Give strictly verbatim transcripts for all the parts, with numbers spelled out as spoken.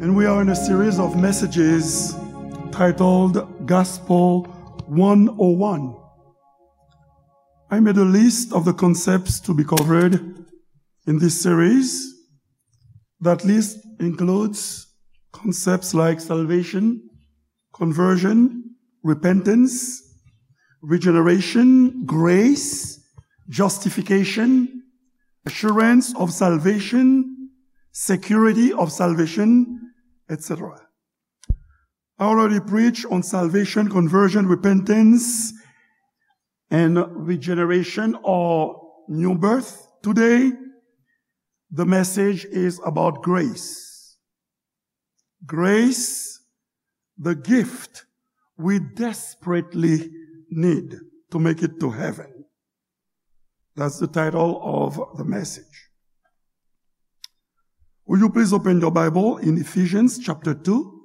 And we are in a series of messages titled Gospel one oh one. I made a list of the concepts to be covered in this series. That list includes concepts like salvation, conversion, repentance, regeneration, grace, justification, assurance of salvation, security of salvation, et cetera. I already preached on salvation, conversion, repentance, and regeneration or new birth. Today, the message is about grace. Grace, the gift we desperately need to make it to heaven. That's the title of the message. Will you please open your Bible in Ephesians chapter two,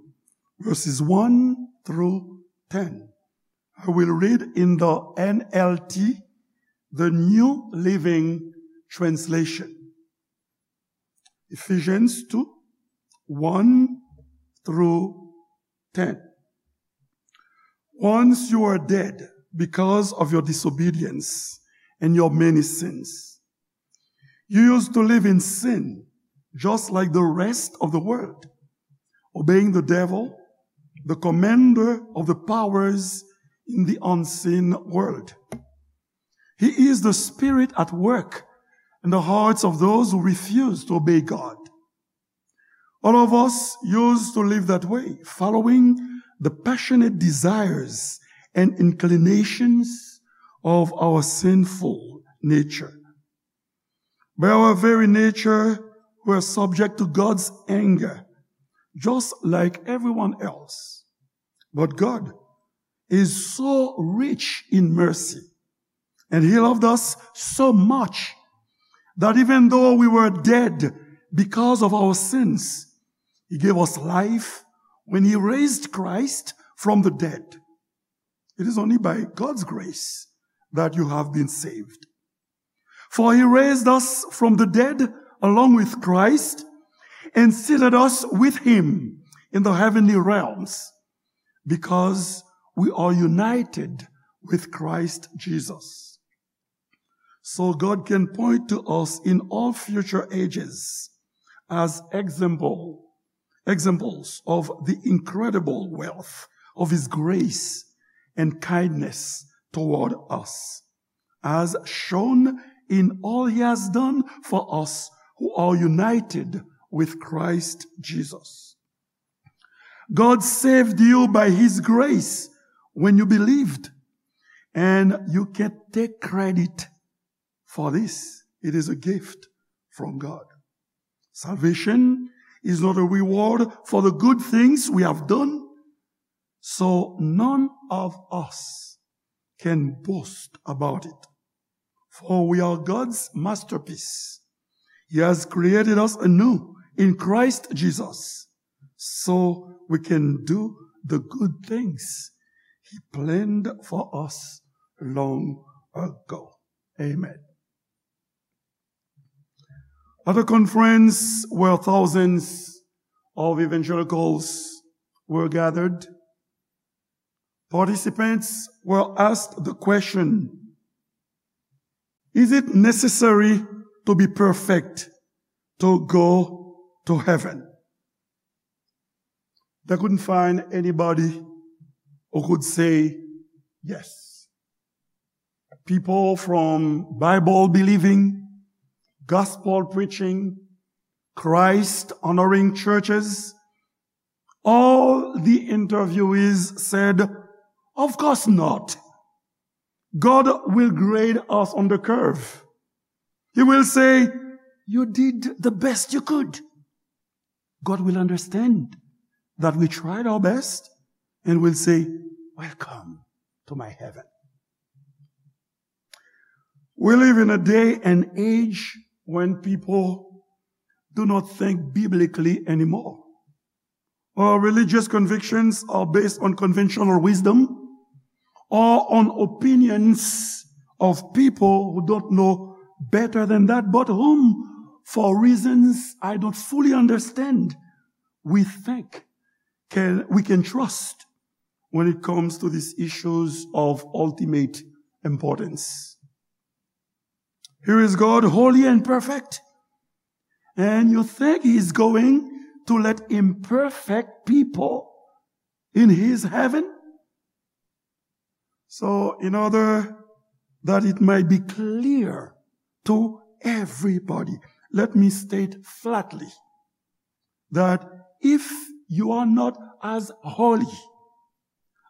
verses one through ten? I will read in the N L T, the New Living Translation. Ephesians two, one through ten. Once you were dead because of your disobedience and your many sins. You used to live in sin, just like the rest of the world, obeying the devil, the commander of the powers in the unseen world. He is the spirit at work in the hearts of those who refuse to obey God. All of us used to live that way, following the passionate desires and inclinations of our sinful nature. By our very nature, we are subject to God's anger, just like everyone else. But God is so rich in mercy, and He loved us so much that even though we were dead because of our sins, He gave us life when He raised Christ from the dead. It is only by God's grace that you have been saved. For He raised us from the dead along with Christ and seated us with Him in the heavenly realms, because we are united with Christ Jesus. So God can point to us in all future ages as example, examples of the incredible wealth of His grace and kindness toward us, as shown in all He has done for us who are united with Christ Jesus. God saved you by His grace when you believed, and you can't take credit for this. It is a gift from God. Salvation is not a reward for the good things we have done, so none of us can boast about it. For we are God's masterpiece. He has created us anew in Christ Jesus, so we can do the good things He planned for us long ago. Amen. At a conference where thousands of evangelicals were gathered, participants were asked the question, "Is it necessary to be perfect to go to heaven?" They couldn't find anybody who could say yes. People from Bible believing, gospel preaching, Christ honoring churches, all the interviewees said, "Of course not. God will grade us on the curve. He will say, 'You did the best you could.' God will understand that we tried our best and will say, 'Welcome to my heaven.'" We live in a day and age when people do not think biblically anymore. Our religious convictions are based on conventional wisdom or on opinions of people who don't know better than that, but whom, for reasons I don't fully understand, we think can, we can trust when it comes to these issues of ultimate importance. Here is God, holy and perfect, and you think he's going to let imperfect people in his heaven? So, in order that it might be clear to everybody, let me state flatly that if you are not as holy,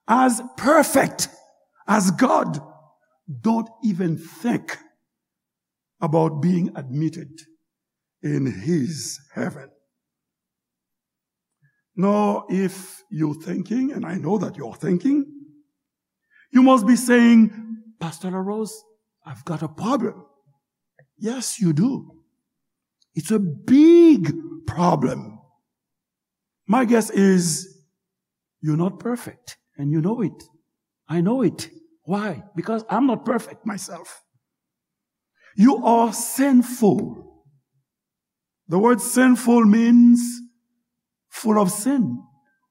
as perfect as God, don't even think about being admitted in his heaven. Now, if you're thinking, and I know that you're thinking, you must be saying, "Pastor LaRose, I've got a problem." Yes, you do. It's a big problem. My guess is you're not perfect, and you know it. I know it. Why? Because I'm not perfect myself. You are sinful. The word sinful means full of sin.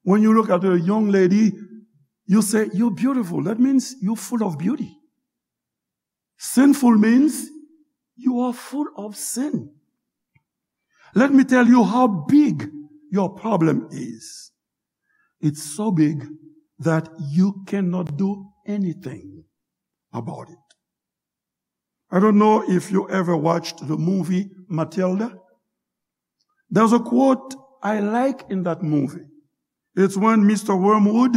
When you look at a young lady, you say, "You're beautiful." That means you're full of beauty. Sinful means you are full of sin. Let me tell you how big your problem is. It's so big that you cannot do anything about it. I don't know if you ever watched the movie Matilda. There's a quote I like in that movie. It's when Mister Wormwood,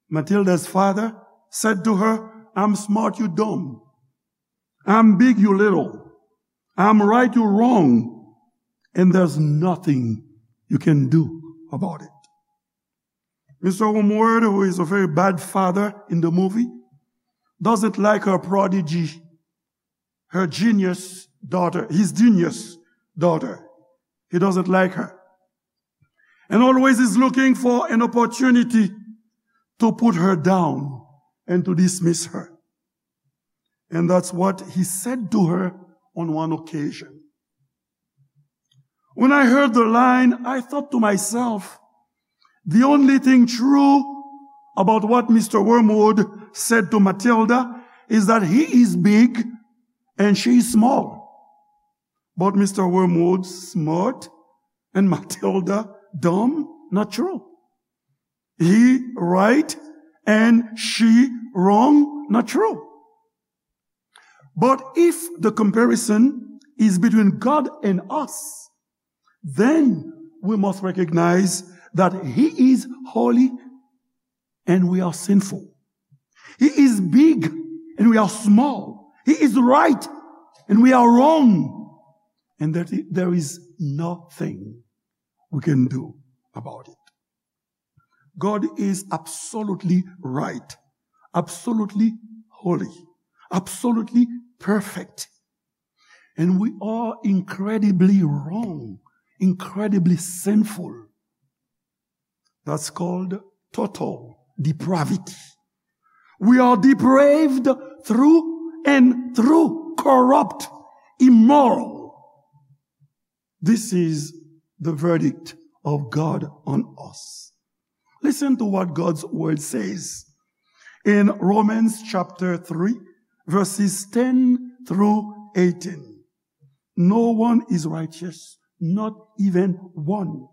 Matilda's father, said to her, "I'm smart, you dumb. I'm big, you little. I'm right, you wrong. And there's nothing you can do about it." Mister Wormwood, who is a very bad father in the movie, doesn't like her prodigy, her genius daughter, his genius daughter. He doesn't like her. And always is looking for an opportunity to put her down and to dismiss her. And that's what he said to her on one occasion. When I heard the line, I thought to myself, the only thing true about what Mister Wormwood said to Matilda is that he is big and she is small. But Mister Wormwood smart and Matilda dumb? Not true. He right and she wrong? Not true. But if the comparison is between God and us, then we must recognize that he is holy and we are sinful. He is big and we are small. He is right and we are wrong. And that there is nothing we can do about it. God is absolutely right, absolutely holy, absolutely perfect. And we are incredibly wrong, incredibly sinful. That's called total depravity. We are depraved through and through, corrupt, immoral. This is the verdict of God on us. Listen to what God's word says in Romans chapter three, verses ten through eighteen. No one is righteous, not even one.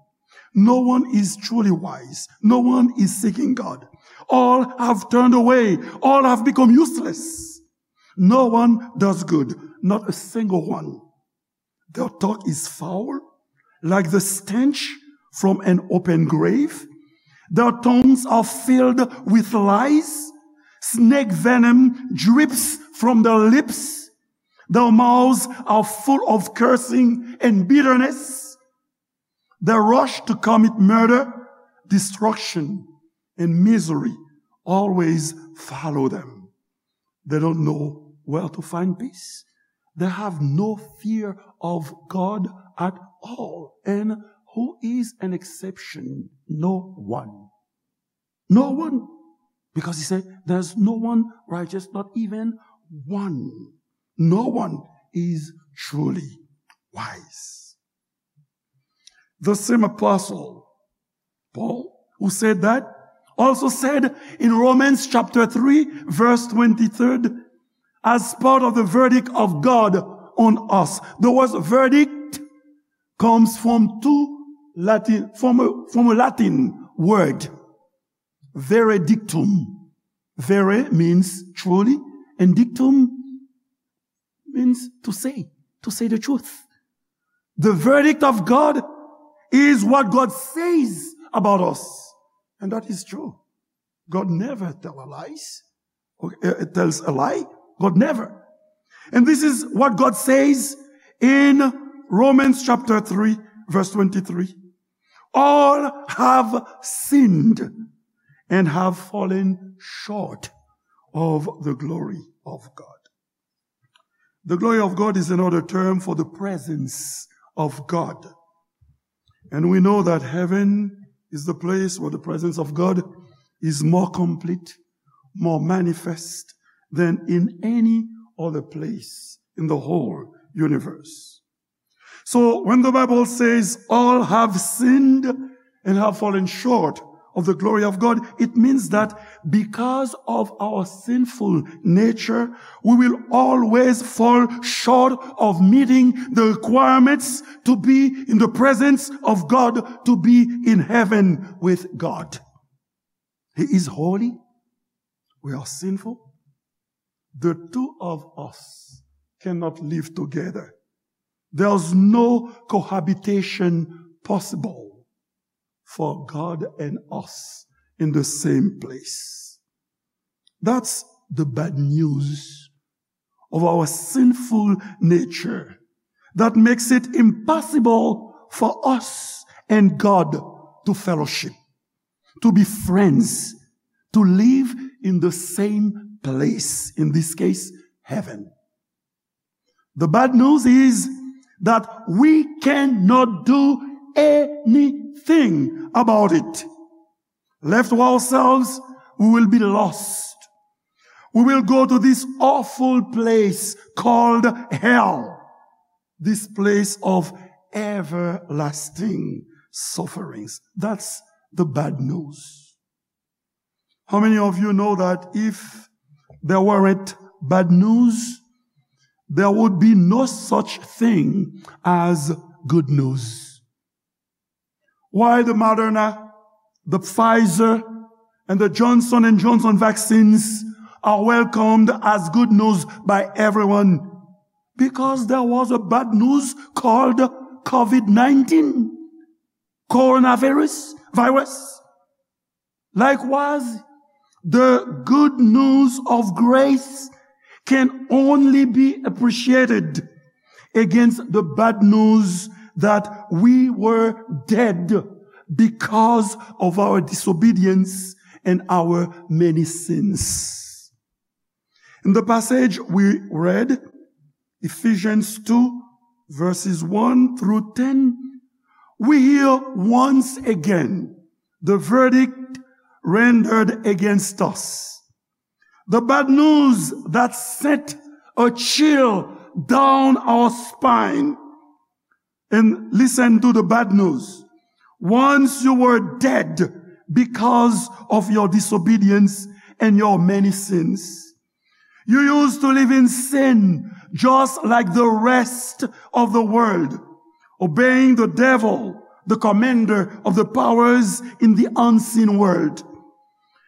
No one is truly wise. No one is seeking God. All have turned away. All have become useless. No one does good, not a single one. Their talk is foul, like the stench from an open grave. Their tongues are filled with lies. Snake venom drips from their lips. Their mouths are full of cursing and bitterness. They rush to commit murder, destruction, and misery always follow them. They don't know where to find peace. They have no fear of God at all. And who is an exception? No one. No one. Because he said, "There's no one righteous, not even one." No one is truly wise. The same apostle Paul, who said that, also said in Romans chapter three, verse twenty-three, as part of the verdict of God on us. The word verdict comes from two Latin, from a, from a Latin word, veredictum. Vere means truly, and dictum means to say, to say the truth. The verdict of God is what God says about us. And that is true. God never tell a lies. Or, uh, tells a lie. God never. And this is what God says in Romans chapter three, verse twenty-three. All have sinned and have fallen short of the glory of God. The glory of God is another term for the presence of God. And we know that heaven is the place where the presence of God is more complete, more manifest than in any other place in the whole universe. So when the Bible says all have sinned and have fallen short of the glory of God, it means that because of our sinful nature, we will always fall short of meeting the requirements to be in the presence of God, to be in heaven with God. He is holy. We are sinful. The two of us cannot live together. There's no cohabitation possible for God and us in the same place. That's the bad news of our sinful nature that makes it impossible for us and God to fellowship, to be friends, to live in the same place, in this case, heaven. The bad news is that we cannot do anything about it. Left to ourselves, we will be lost. We will go to this awful place called hell, this place of everlasting sufferings. That's the bad news. How many of you know that if there weren't bad news, there would be no such thing as good news? Why the Moderna, the Pfizer, and the Johnson and Johnson vaccines are welcomed as good news by everyone? Because there was a bad news called COVID nineteen, coronavirus, virus. Likewise, the good news of grace can only be appreciated against the bad news that we were dead because of our disobedience and our many sins. In the passage we read, Ephesians two, verses one through ten, we hear once again the verdict rendered against us. The bad news that sent a chill down our spine. And listen to the bad news. Once you were dead because of your disobedience and your many sins. You used to live in sin just like the rest of the world, obeying the devil, the commander of the powers in the unseen world.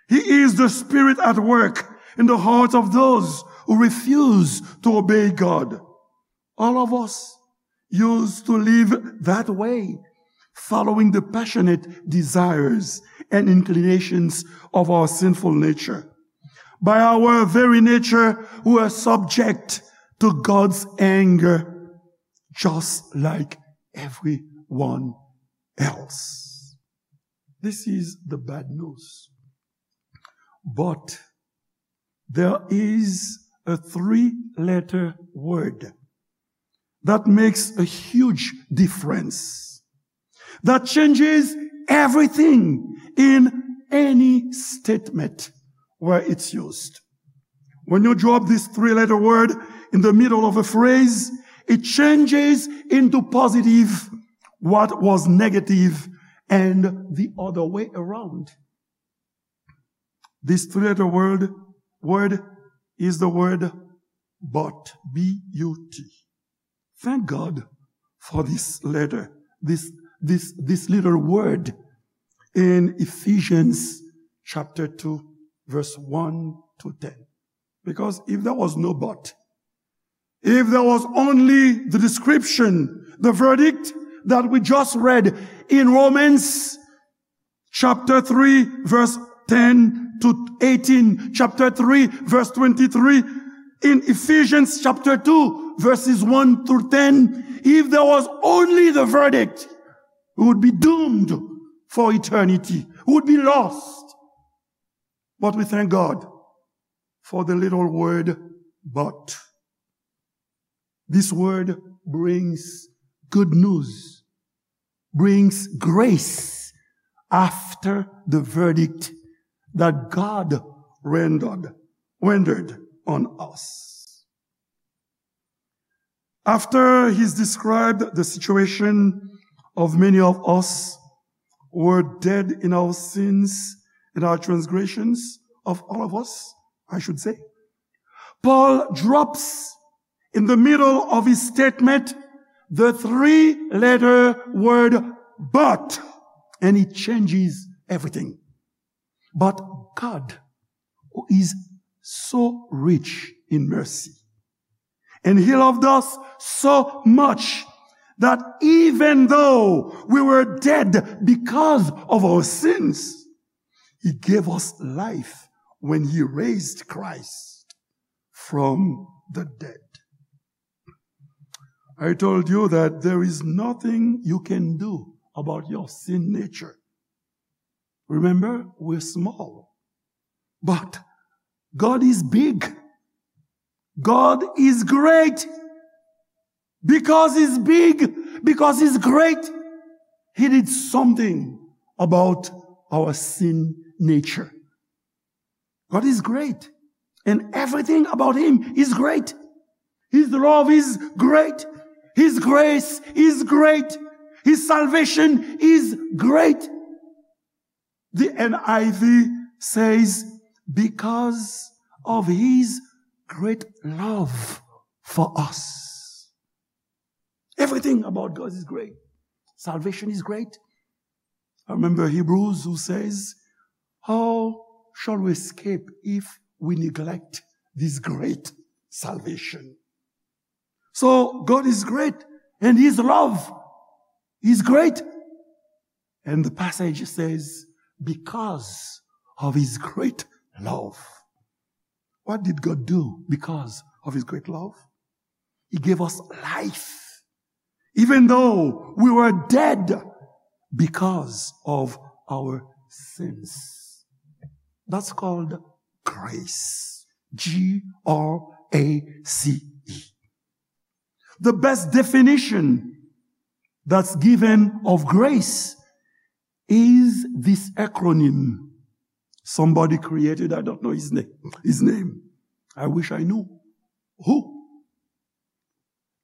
He is the spirit at work in the hearts of those who refuse to obey God. All of us used to live that way, following the passionate desires and inclinations of our sinful nature. By our very nature, we are subject to God's anger, just like everyone else. This is the bad news. But there is a three-letter word that makes a huge difference, that changes everything in any statement where it's used. When you drop this three-letter word in the middle of a phrase, it changes into positive what was negative and the other way around. This three-letter word, word is the word but, B U T. Thank God for this letter, this, this, this little word in Ephesians chapter two, verse one to ten. Because if there was no but, if there was only the description, the verdict that we just read in Romans chapter three, verse ten to eighteen, chapter three, verse twenty-three, in Ephesians chapter two, verses one through ten, if there was only the verdict, we would be doomed for eternity. We would be lost. But we thank God for the little word but. This word brings good news, brings grace after the verdict that God rendered, rendered on us. After he's described the situation of many of us who were dead in our sins and our transgressions, of all of us, I should say, Paul drops in the middle of his statement the three-letter word but, and it changes everything. But God, who is so rich in mercy, and he loved us so much that even though we were dead because of our sins, he gave us life when he raised Christ from the dead. I told you that there is nothing you can do about your sin nature. Remember, we're small. But God is big. God is great. Because he's big, because he's great, he did something about our sin nature. God is great, and everything about him is great. His love is great. His grace is great. His salvation is great. The N I V says, because of his great love for us. Everything about God is great. Salvation is great. I remember Hebrews who says, how shall we escape if we neglect this great salvation? So God is great and his love is great. And the passage says, because of his great love. What did God do because of his great love? He gave us life, even though we were dead because of our sins. That's called grace. G R A C E. The best definition that's given of grace is this acronym somebody created. I don't know his name, his name. I wish I knew who.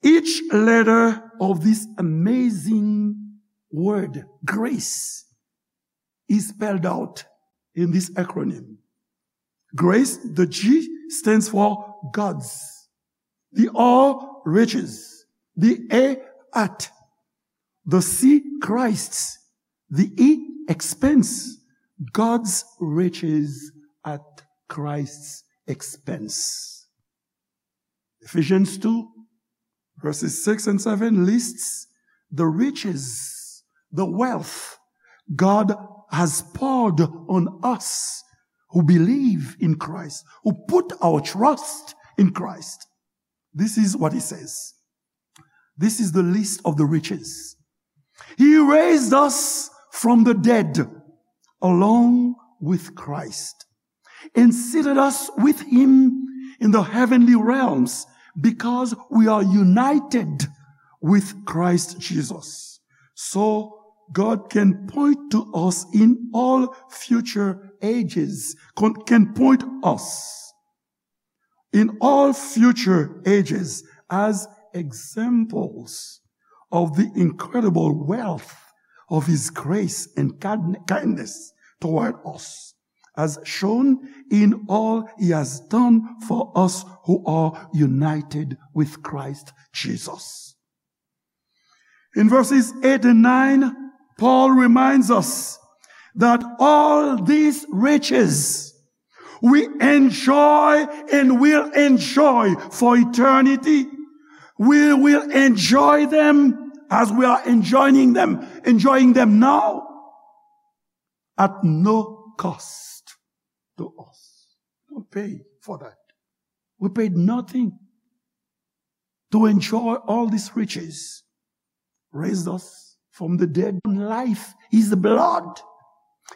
Each letter of this amazing word, grace, is spelled out in this acronym. Grace, the G stands for God's. The R, riches. The A, at. The C, Christ's. The E, expense. God's riches at Christ's expense. Ephesians two, verses six and seven lists the riches, the wealth God has poured on us who believe in Christ, who put our trust in Christ. This is what he says. This is the list of the riches. He raised us from the dead along with Christ and seated us with him in the heavenly realms because we are united with Christ Jesus. So God can point to us in all future ages, con-, can point us in all future ages as examples of the incredible wealth of his grace and kind-, kindness toward us, as shown in all he has done for us who are united with Christ Jesus. In verses eight and nine, Paul reminds us that all these riches we enjoy and will enjoy for eternity, we will enjoy them as we are enjoying them, enjoying them now at no cost to us. Don't pay for that. We paid nothing to enjoy all these riches. Raised us from the dead. Life, his blood.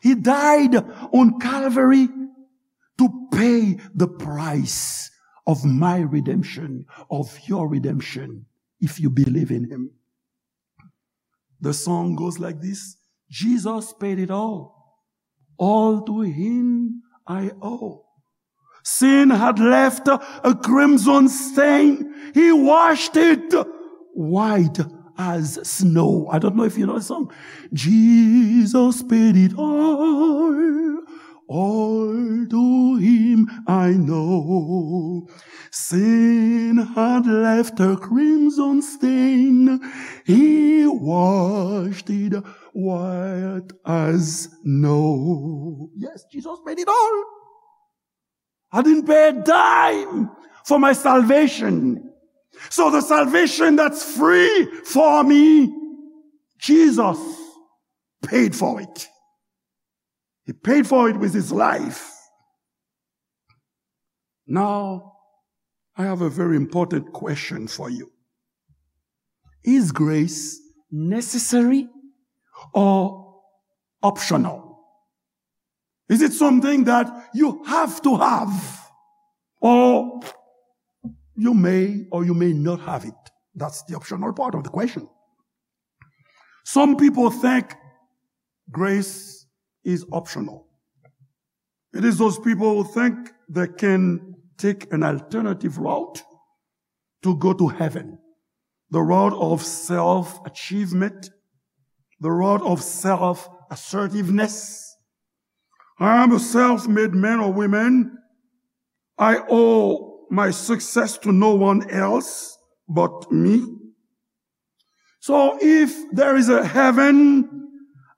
He died on Calvary to pay the price of my redemption, of your redemption, if you believe in him. The song goes like this: Jesus paid it all. All to him I owe. Sin had left a crimson stain. He washed it white as snow. I don't know if you know the song. Jesus paid it all. All to him I know. Sin had left a crimson stain. He washed it white as snow. Yes, Jesus paid it all. I didn't pay a dime for my salvation. So the salvation that's free for me, Jesus paid for it. He paid for it with his life. Now, I have a very important question for you. Is grace necessary or optional? Is it something that you have to have? Or you may or you may not have it. That's the optional part of the question. Some people think grace is optional. It is those people who think they can take an alternative route to go to heaven. The route of self-achievement, the route of self-assertiveness. I am a self-made man or woman. I owe my success to no one else but me. So if there is a heaven,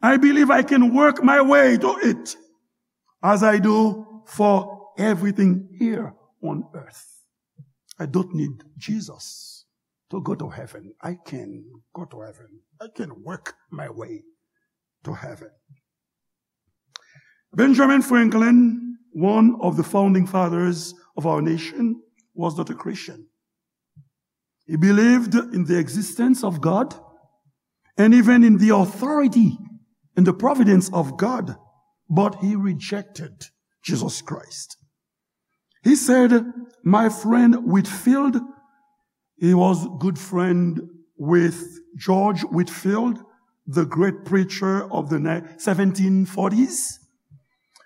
I believe I can work my way to it, as I do for everything here on earth. I don't need Jesus to go to heaven. I can go to heaven. I can work my way to heaven. Benjamin Franklin, one of the founding fathers of our nation, was not a Christian. He believed in the existence of God and even in the authority and the providence of God, but he rejected Jesus Christ. He said, my friend Whitefield, he was good friend with George Whitefield, the great preacher of the ni-, seventeen forties.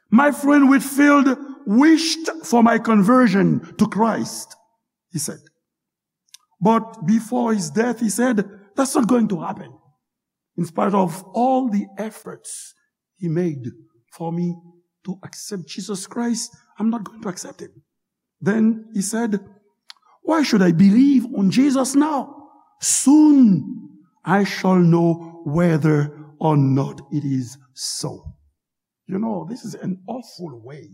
My friend Whitefield wished for my conversion to Christ, he said. But before his death, he said, that's not going to happen. In spite of all the efforts he made for me to accept Jesus Christ, I'm not going to accept him. Then he said, why should I believe on Jesus now? Soon I shall know whether or not it is so. You know, this is an awful way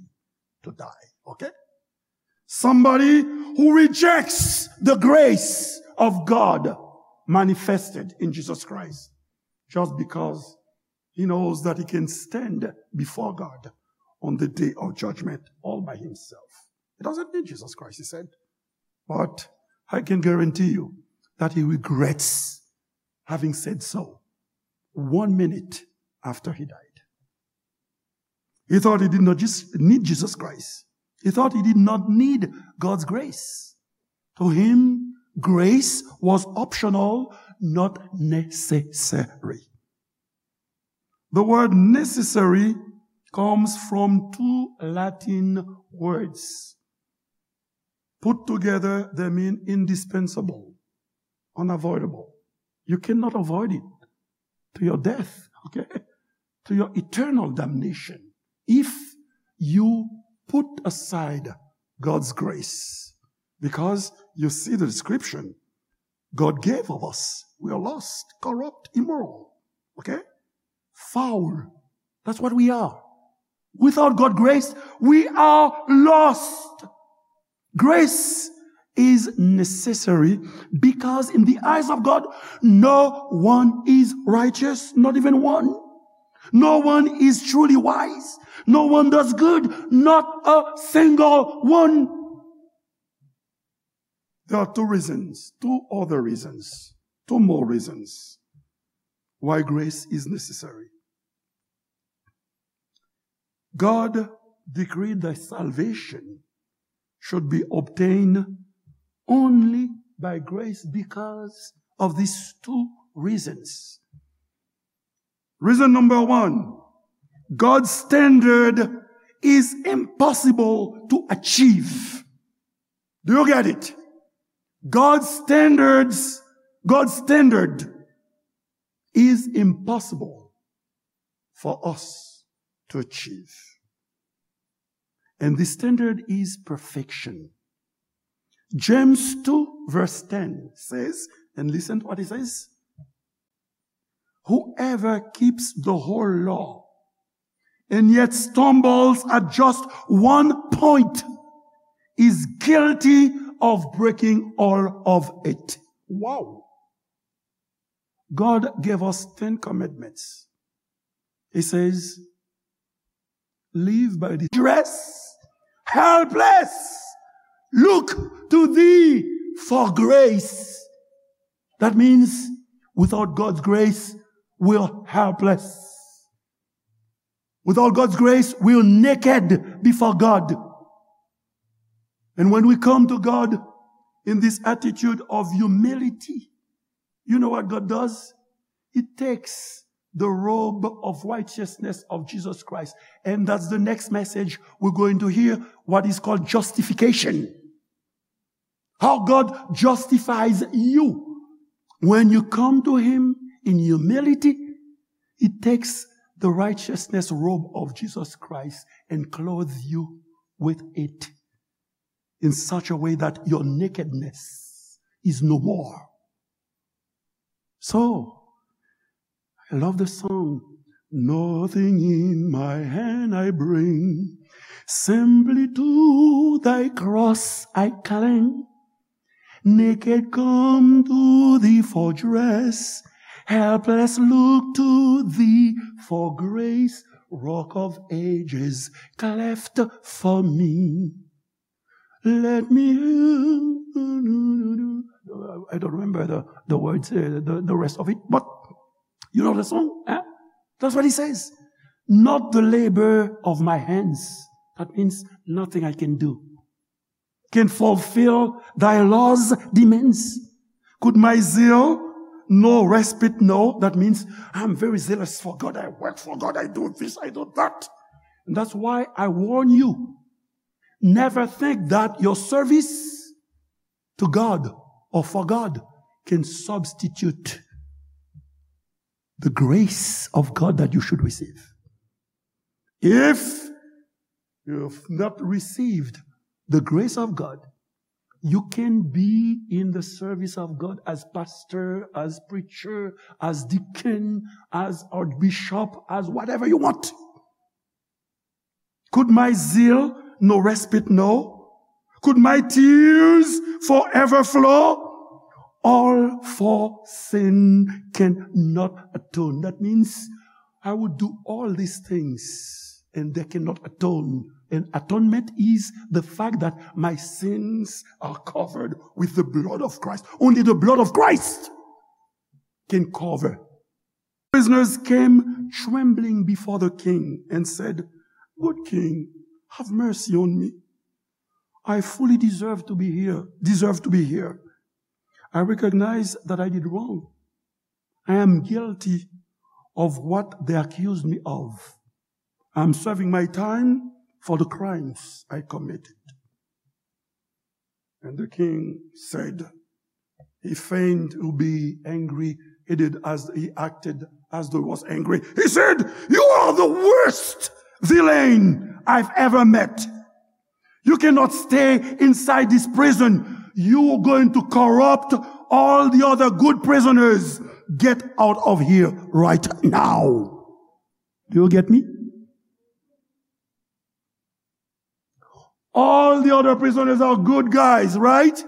to die, okay? Somebody who rejects the grace of God manifested in Jesus Christ just because he knows that he can stand before God on the day of judgment all by himself. He doesn't need Jesus Christ, he said. But I can guarantee you that he regrets having said so one minute after he died. He thought he did not just need Jesus Christ. He thought he did not need God's grace. To him, grace was optional, not necessary. The word necessary comes from two Latin words. Put together, they mean indispensable, unavoidable. You cannot avoid it to your death. okay, to your eternal damnation if you put aside God's grace. Because you see the description God gave of us. We are lost, corrupt, immoral. Okay? Foul. That's what we are. Without God's grace, we are lost. Grace is necessary because in the eyes of God, no one is righteous, not even one. No one is truly wise. No one does good, not a single one. There are two reasons, two other reasons, two more reasons why grace is necessary. God decreed that salvation should be obtained only by grace because of these two reasons. Reason number one, God's standard is impossible to achieve. Do you get it? God's standards, God's standard is impossible for us to achieve. And the standard is perfection. James two verse ten says, and listen to what it says, "Whoever keeps the whole law and yet stumbles at just one point is guilty of breaking all of it." Wow. God gave us ten commandments. He says, "Live by the dress, helpless, look to thee for grace." That means without God's grace, we're helpless. Without God's grace, we're naked before God. And when we come to God in this attitude of humility, you know what God does? He takes the robe of righteousness of Jesus Christ. And that's the next message we're going to hear, what is called justification. How God justifies you. When you come to Him in humility, He takes the righteousness robe of Jesus Christ and clothes you with it in such a way that your nakedness is no more. So, I love the song. "Nothing in my hand I bring, simply to thy cross I cling. Naked come to thee for dress, helpless look to thee for grace, rock of ages cleft for me." Let me, I don't remember the, the words, uh, the, the rest of it, but you know the song, eh? That's what he says. "Not the labor of my hands." That means nothing I can do can fulfill thy law's demands. Could my zeal no respite know? That means I'm very zealous for God. I work for God. I do this, I do that. And that's why I warn you. Never think that your service to God or for God can substitute the grace of God that you should receive. If you've not received the grace of God, you can be in the service of God as pastor, as preacher, as deacon, as archbishop, as whatever you want. Could my zeal no respite know? Could my tears forever flow? All for sin cannot atone. That means I would do all these things and they cannot atone. And atonement is the fact that my sins are covered with the blood of Christ. Only the blood of Christ can cover. Prisoners came trembling before the king and said, "Good king, have mercy on me. I fully deserve to be here, deserve to be here. I recognize that I did wrong. I am guilty of what they accused me of. I am serving my time for the crimes I committed." And the king said, he feigned to be angry He did as he acted as though he was angry. He said, "You are the worst villain I've ever met. You cannot stay inside this prison. You are going to corrupt all the other good prisoners. Get out of here right now." Do you get me? All the other prisoners are good guys, right?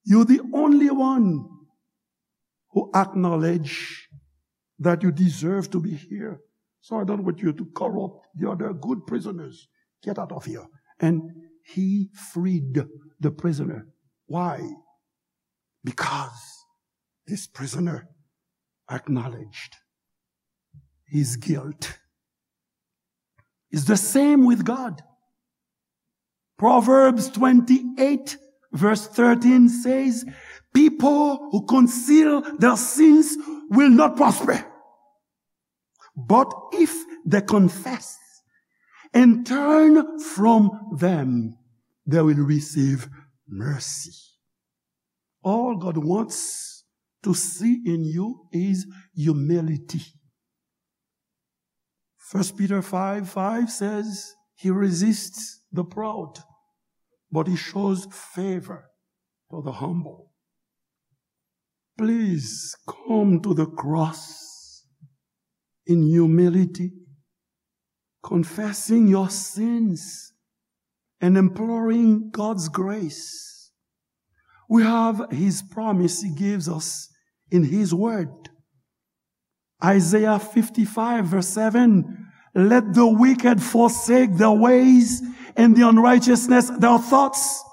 You're the only one who acknowledge that you deserve to be here. So I don't want you to corrupt the other good prisoners. Get out of here. And he freed the prisoner. Why? Because this prisoner acknowledged his guilt. It's the same with God. Proverbs twenty-eight, verse thirteen says, "People who conceal their sins will not prosper. But if they confess and turn from them, they will receive mercy." All God wants to see in you is humility. First Peter five five says, "He resists the proud, but he shows favor to the humble." Please come to the cross in humility, confessing your sins and imploring God's grace. We have his promise he gives us in his word. Isaiah fifty-five, verse seven, "Let the wicked forsake their ways and the unrighteousness their thoughts.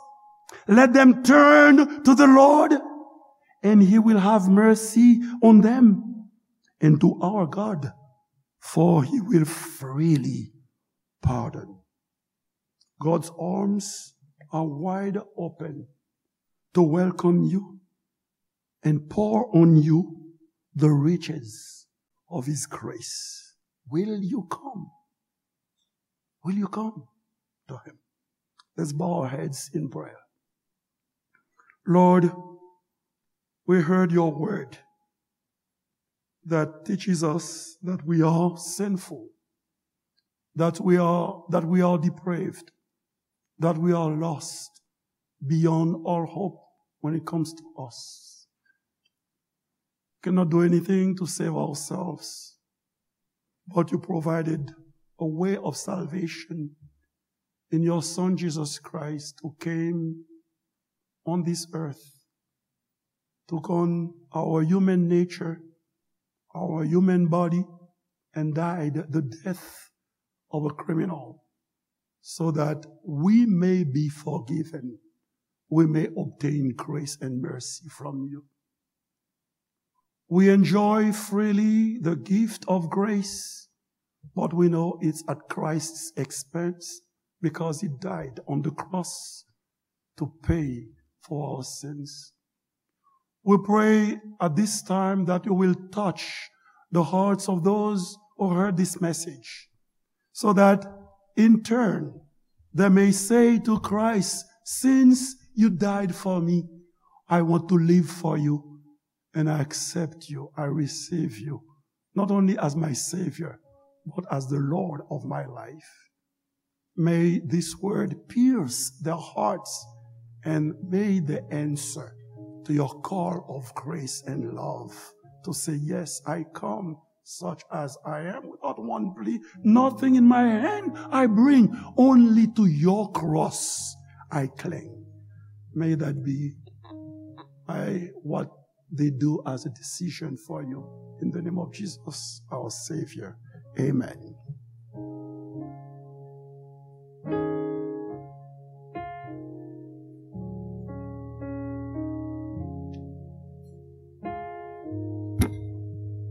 Let them turn to the Lord, and he will have mercy on them, and to our God, for he will freely pardon." God's arms are wide open to welcome you and pour on you the riches of his grace. Will you come? Will you come to him? Let's bow our heads in prayer. Lord, we heard your word that teaches us that we are sinful, that we are, that we are depraved, that we are lost beyond all hope when it comes to us. Cannot do anything to save ourselves, but you provided a way of salvation in your Son Jesus Christ, who came on this earth, took on our human nature, our human body, and died the death of a criminal, so that we may be forgiven, we may obtain grace and mercy from you. We enjoy freely the gift of grace, but we know it's at Christ's expense because he died on the cross to pay for our sins. We pray at this time that you will touch the hearts of those who heard this message, so that in turn they may say to Christ, "Since you died for me, I want to live for you, and I accept you, I receive you, not only as my Savior, but as the Lord of my life." May this word pierce their hearts, and may they answer to your call of grace and love to say, "Yes, I come such as I am, without one plea, nothing in my hand I bring, only to your cross I cling." May that be, I, what they do as a decision for you. In the name of Jesus, our Savior. Amen.